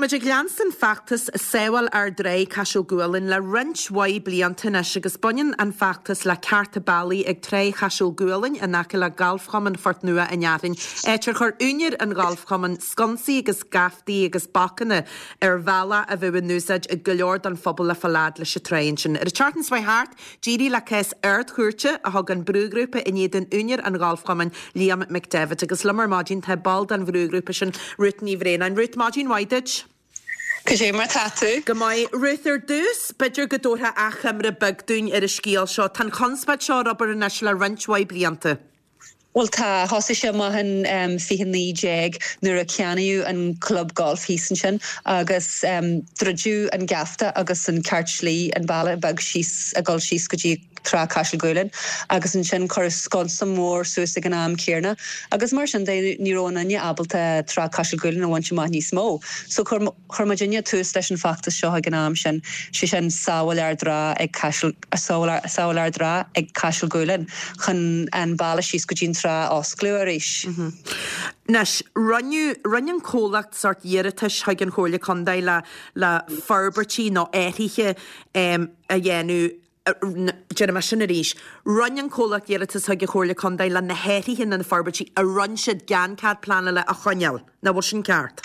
muid ag leanstan feachtas Sábháil Ár dTrá Caiseal Gualainn le roinnt mhaith blianta anois agus baineann an feachtas le cearta bealaigh ag Trá Chaiseal Gualainn in aice le Galfchumann Phort Nua an Fhearthainn, áit ar chuir úinéir an ghalfchumainn sconsaí agus geaftaí agus bacanna ar bhealach a bheadh in úsáid ag go leor den phobal le fáil fhad leis an trá ansin. Ar an tseachtain seo thart, D'éirigh le cás Ard-Chúirte a thug an brúghrúpa in éadan úinéir an ghalfchumainn, Liam McDevitt. Agus liom ar maidin tá ball den bhrúghrúpa sin, Ruth Ní Bhraonáin. Ruth, maidin mhaith duit. Cad é mar tá tú? Go maith. Ruth, ar dtús, b'fhéidir go dtabharfá achoimre beag dúinn ar an scéal seo. Tá an chonspóid seo ar obair anois le roinnt mhaith blianta. Bhuel tá, thosaigh sé amach in 2019 nuair a ceannaíodh an club golf thíos ansin agus druideadh an geafta agus an ceart slí, an bealach beag síos, ag dul síos go dtí Trá Caiseal Gualainn agus ansin cuireadh sconsa mór suas ag an am céarna agus mar sin de ní raibh aon duine ábalta Trá Caiseal Gualainn a bhaint amach níos mó. So chuir Chuir muidinne tús leis an bhfeachtas seo ag an am sin, sé sin Sábháil Ár dTrá ag Caiseal, Sábháil Ár dTrá ag Caiseal Gualainn, chun an bealach síos go dtí an trá a osclú arís. Anois, rinneadh, rinne an comhlacht sórt iarratais chuig an Chomhairle Contae le, le forbairtí nó athruithe a dhéanamh, déarfaidh mé sin arís, rinne an comhlacht iarratas chuig an Chomhairle Contae le na hathruithe nó na forbairtí a rinne siad gan cead pleanála a choinneáil. Nach bhfuil sin ceart?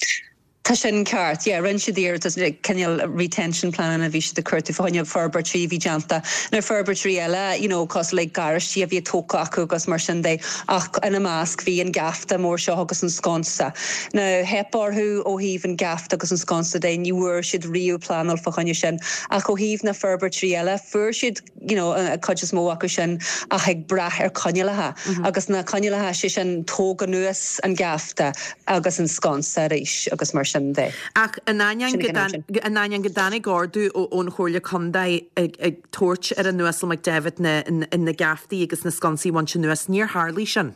Tá sin ceart, yeah. Rinne siad iarratas, cineál retention pleananna a bhí siad ag cuartú fá choinne forbairtí a bhí déanta. Now forbairtí eile, you know, cosúil le garáistí a bhí tógtha acu agus mar sin de, ach ina measc bhí an geafta mór seo agus an sconsa. Now theip orthu ó thaobh an geafta agus an sconsa de, ní bhfuair siad riamh pleanáil fá choinne sin. Ach ó thaobh na forbairtí eile, fuair siad, you know, an cuid is mó acu sin ach ag brath ar coinníollacha agus na coinníollacha, sé sin tóg anuas an geafta agus an sconsa arís agus mar sin de. Ach in ainneoin go in ainneoin go dtáinig ordú ón Chomhairle Contae ag tabhairt ar an Uasal McDevitt na na geaftaí agus na sconsaí a bhaint anuas, níor tharlaigh sin.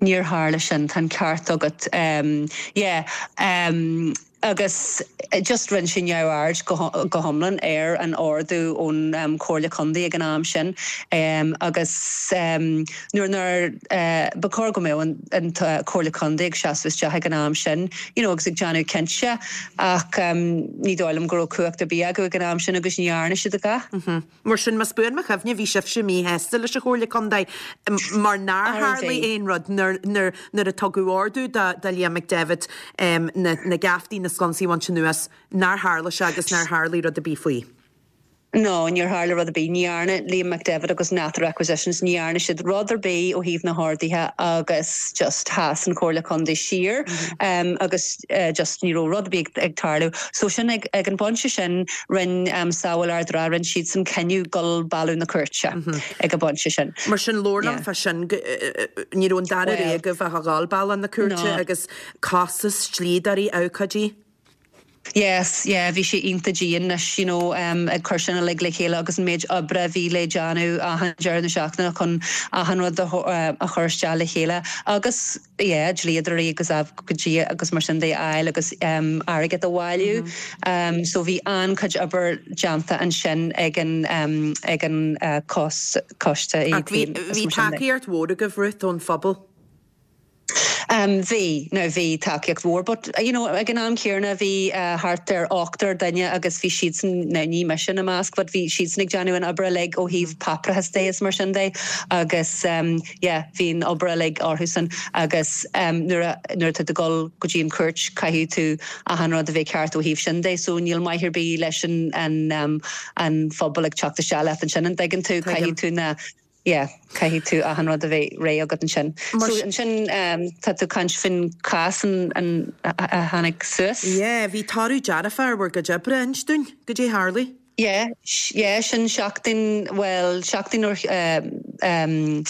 Níor tharla sin, tá an ceart agat. Yeah. Agus just rinne sé neamhaird go hiomlán ar an ordú ón Chomhairle Contae ag an am sin agus nuair nár, ba chóir go mbeadh an Chomhairle Contae ag seasamh isteach ag an am sin you know agus ag déanamh cinnte ach ní dóigh liom go raibh cumhacht ar bith acu ag an am sin agus ní dhearna siad a dhath. Mar sin, más buan mo chuimhne, bhí sibhse míshásta leis an Chomhairle Contae mar nár tharlaigh aon rud nuair a tugadh ordú do Liam McDevitt na geaftaí, na sconsaí a bhaint anuas, nár tharla sé agus nár tharlaigh rud ar bith faoi. No, níor tharla rud ar bith. Ní dhearna Liam McDevitt agus Nather Acquisitions, ní dhearna siad rud ar bith ó thaobh na horduithe agus just sheas an Chomhairle Contae siar agus just ní raibh rud ar bith ag tarlú. So sin ag an bpointe sin, Rinne Sábháil Ár dTrá, rinne siadsan cinneadh dul bealach na cúirte ag an bpointe sin. Mar sin, labhair liom fá sin, ní raibh an dara rogha agaibh ach a dhul bealach na cúirte agus costas, dlíodóirí, abhcóidí. Yes, yeah, bhí sé iontach dian anois, you know, ag cur sin uilig le chéile agus an méid oibre a bhí le déanamh achan deireadh na seachtaine chun achan rud a chur isteach le chéile agus, yeah, dlíodóirí agus abhcóidí agus mar sin de a fháil agus airgead a bhailiú. So bhí an-chuid obair déanta ansin ag an ag an coiste Ach bhí bhí tacaíocht mhór agaibh, Ruth, ón phobal? Bhí, now bhí tacaíocht mhór but you know ag an am céanna bhí thart ar ochtar duine agus bhí siadsan, now ní mise ina measc but bhí siadsan ag déanamh an obair uilig ó thaobh páipéarachas de is mar sin de agus yeah, bhí an obair uilig orthusan agus nuair a, nuair atá tú ag dul go dtí an chúirt caithfidh tú achan rud a bheith ceart ó thaobh sin de so níl maith ar bith leis an, an, an phobal ag teacht isteach leat ansin, an dtuigeann tú, caithfidh tú na, yeah, caithfidh tú achan rud a bheith réidh agat ansin. So ansin tá tú ag caint faoin chás an, an, a tháinig suas. Yeah, bhí toradh dearfach ar bhur gcuid oibre, inis dúinn, goidé a tharlaigh. Yeah, yeah, sin seachtain, bhuel, seachtain ó em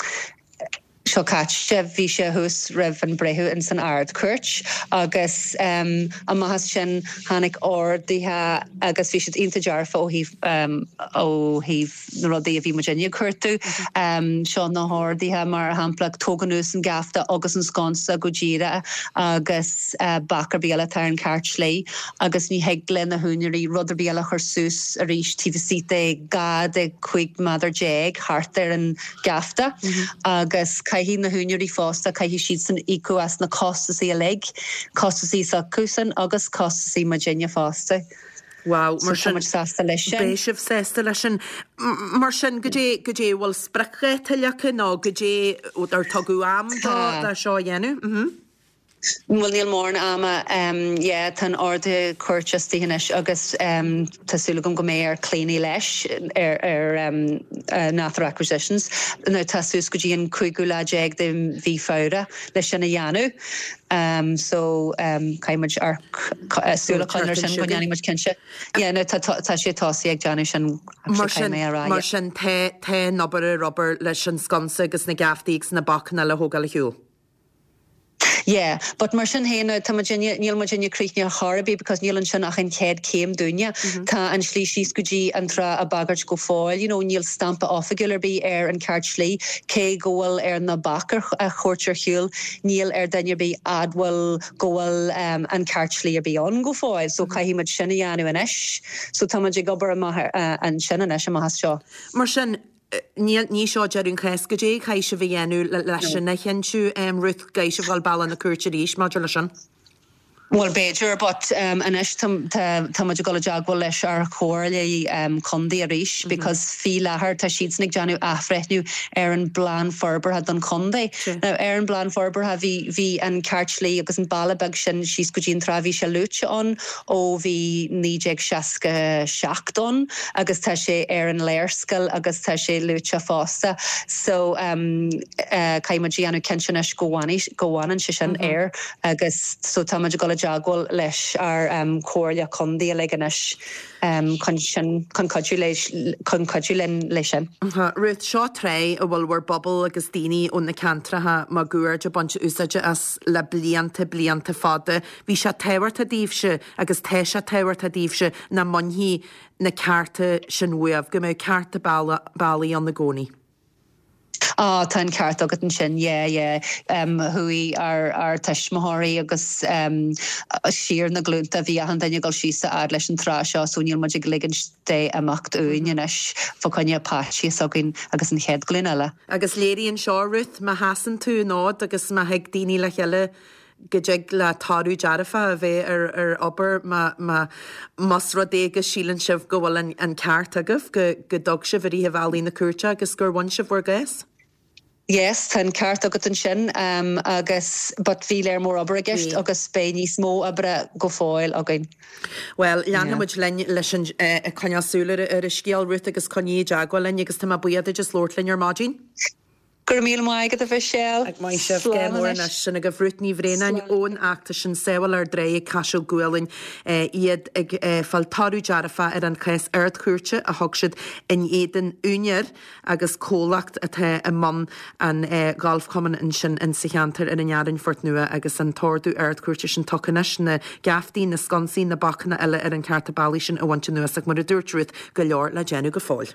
seo caite, bhí sé thuas roimh an breitheamh ins an Ard-Chúirt agus em amach as sin tháinig orduithe agus bhí siad iontach dearfa ó thaobh em ó thaobh na rudaí a bhí muidinne ag cuartú. Em seo na horduithe mar shampla tóg anuas an geafta agus an sconsa go díreach agus bac ar bith eile atá ar an cheart slí agus ní thig le na húinéirí rud ar bith eile a chur suas arís taobh istigh de 12 de 15 méadar thart ar an gheafta agus caithfidh. caithfidh na húinéirí fosta, caithfidh siadsan íocadh as na costasaí uilig, costasaí s'acusan agus costasaí muidinne fosta. Wow, mar sin, tá muid sásta leis sin. Beidh sibh sásta leis sin. Mar sin, goidé, goidé, bhfuil spriocdháta leagtha nó goidé, ar tugadh am do, do seo a dhéanamh? Mhm. Bhuel, níl mórán ama. Yeah, tá an ordú cúirte istigh anois agus tá súil agam go mbeidh ar Clíona leis ar ar Nather Acquisitions. Now tá suas go dtí an cúigiú lá déag de mhí Feabhra leis sin a dhéanamh. So caithfidh muid amharc súil a choinneáil ar sin go ndéanfaidh muid cinnte. Yeah, now tá tá sé tosaithe ag déanamh sin Mar sin, mar sin tá tá an obair ar obair leis an sconsa agus na geaftaí agus na bacanna le thógáil ar shiúl. Yeah, but mar sin féin, tá muidinne, níl muidinne críochnaithe ar chor ar bith because níl ansin ach an chéad chéim dúinne. Tá an slí síos go dtí an trá á bagairt go fóill, you know, níl stampa oifigiúil ar bith ar an ceart slí, cé go bhfuil ar na baic a thabhairt ar shiúl, níl ar duine ar bith admháil go bhfuil an ceart slí ar bith ann go fóill, so caithfidh muid sin a dhéanamh anois. So tá muid ag obair amach ansin anois, amach as seo. Mar sin, Níl, ní seo deireadh an chás. Goidé a chaithfidh sibh a dhéanamh leis sin a chinntiú, Ruth, an gcaithfidh sibh dhul bealach na cúirte arís maidir leis sin? Bhuel, b'fhéidir, but anois tá, tá muid ag dul i dteagmháil leis ár chomhairle contae arís because faoi láthair tá siadsan ag déanamh athbhreithniú ar an bplean forbartha don chontae. Now ar an bplean forbartha bhí, bhí an ceart slí agus an bealach beag sin síos go dtí an trá, bhí sé luaite ann ó bhí 1967 ann agus tá sé ar an léarscáil agus tá sé luaite fosta so caithfidh muid a dhéanamh cinnte anois go bhfanfaidh, go bhfanann sé sin air agus so tá muid ag dul i dteagmháil leis ár Comhairle Contae uilig anois chun sin, chun cuidiú leis, chun cuidiú linn leis sin. Ruth, seo trá a bhfuil bhur bpobal agus daoine ó na ceantracha máguaird ag baint úsáide as le blianta, blianta fada. Bhí sé tábhachtach daoibhse agus tá sé tábhachtach daoibhse nach mbainfí na cearta sin uaibh, go mbeadh cearta bealaigh ann i gcónaí. Á, tá an ceart agat ansin, yeah, yeah. Chuaigh ár, ár tuismitheoirí agus siar na glúnta, bhí achan duine ag dul síos a fhad leis an trá seo so níl muid ag ligint dé imeacht uainn anois fá choinne páistí s'againn agus an chéad ghlúin eile. Agus léiríonn seo, Ruth, má sheasann tú an fhód agus má thig daoine le chéile go dtig le toradh dearfach a bheith ar ar obair má má más rud é go síleann sibh go bhfuil an an ceart agaibh, go go dtug sibh i rith bhealaí na cúirte agus gur bhain sibh bhur gcás. Yes, tá an ceart agat ansin agus but bhí léar mór obair i gceist agus beidh níos mó oibre go fóill againn. Bhuel, leanfaidh muid linn leis an ag coinneáil súil ar ar an scéal, Ruth, agus coinnigh i dteagmháil linn agus tá mé buíoch duit as labhairt linn ar maidin. Go raibh míle maith agat a Mhichelle. Maith sibh go Slán mór anois. anois. Sin agaibh Ruth Ní Bhraonáin ón fheachtas sin Sábháil Ár dTráigh ag Caiseal Gualainn. Iad ag fáil toradh dearfach ar an chás Ard-Chúirte a thug siad in éadan úinéir agus comhlacht atá i mbun an ghalfchumainn ansin in sa cheantar ar an Fhearainn, Phort Nua agus an t-ordú Ard-Chúirte sin tugtha anois, na geaftaí, na sconsaí, na bacanna eile ar an cearta bealaigh sin a bhaint anuas ach mar a dúirt Ruth, go leor le déanamh go fóill.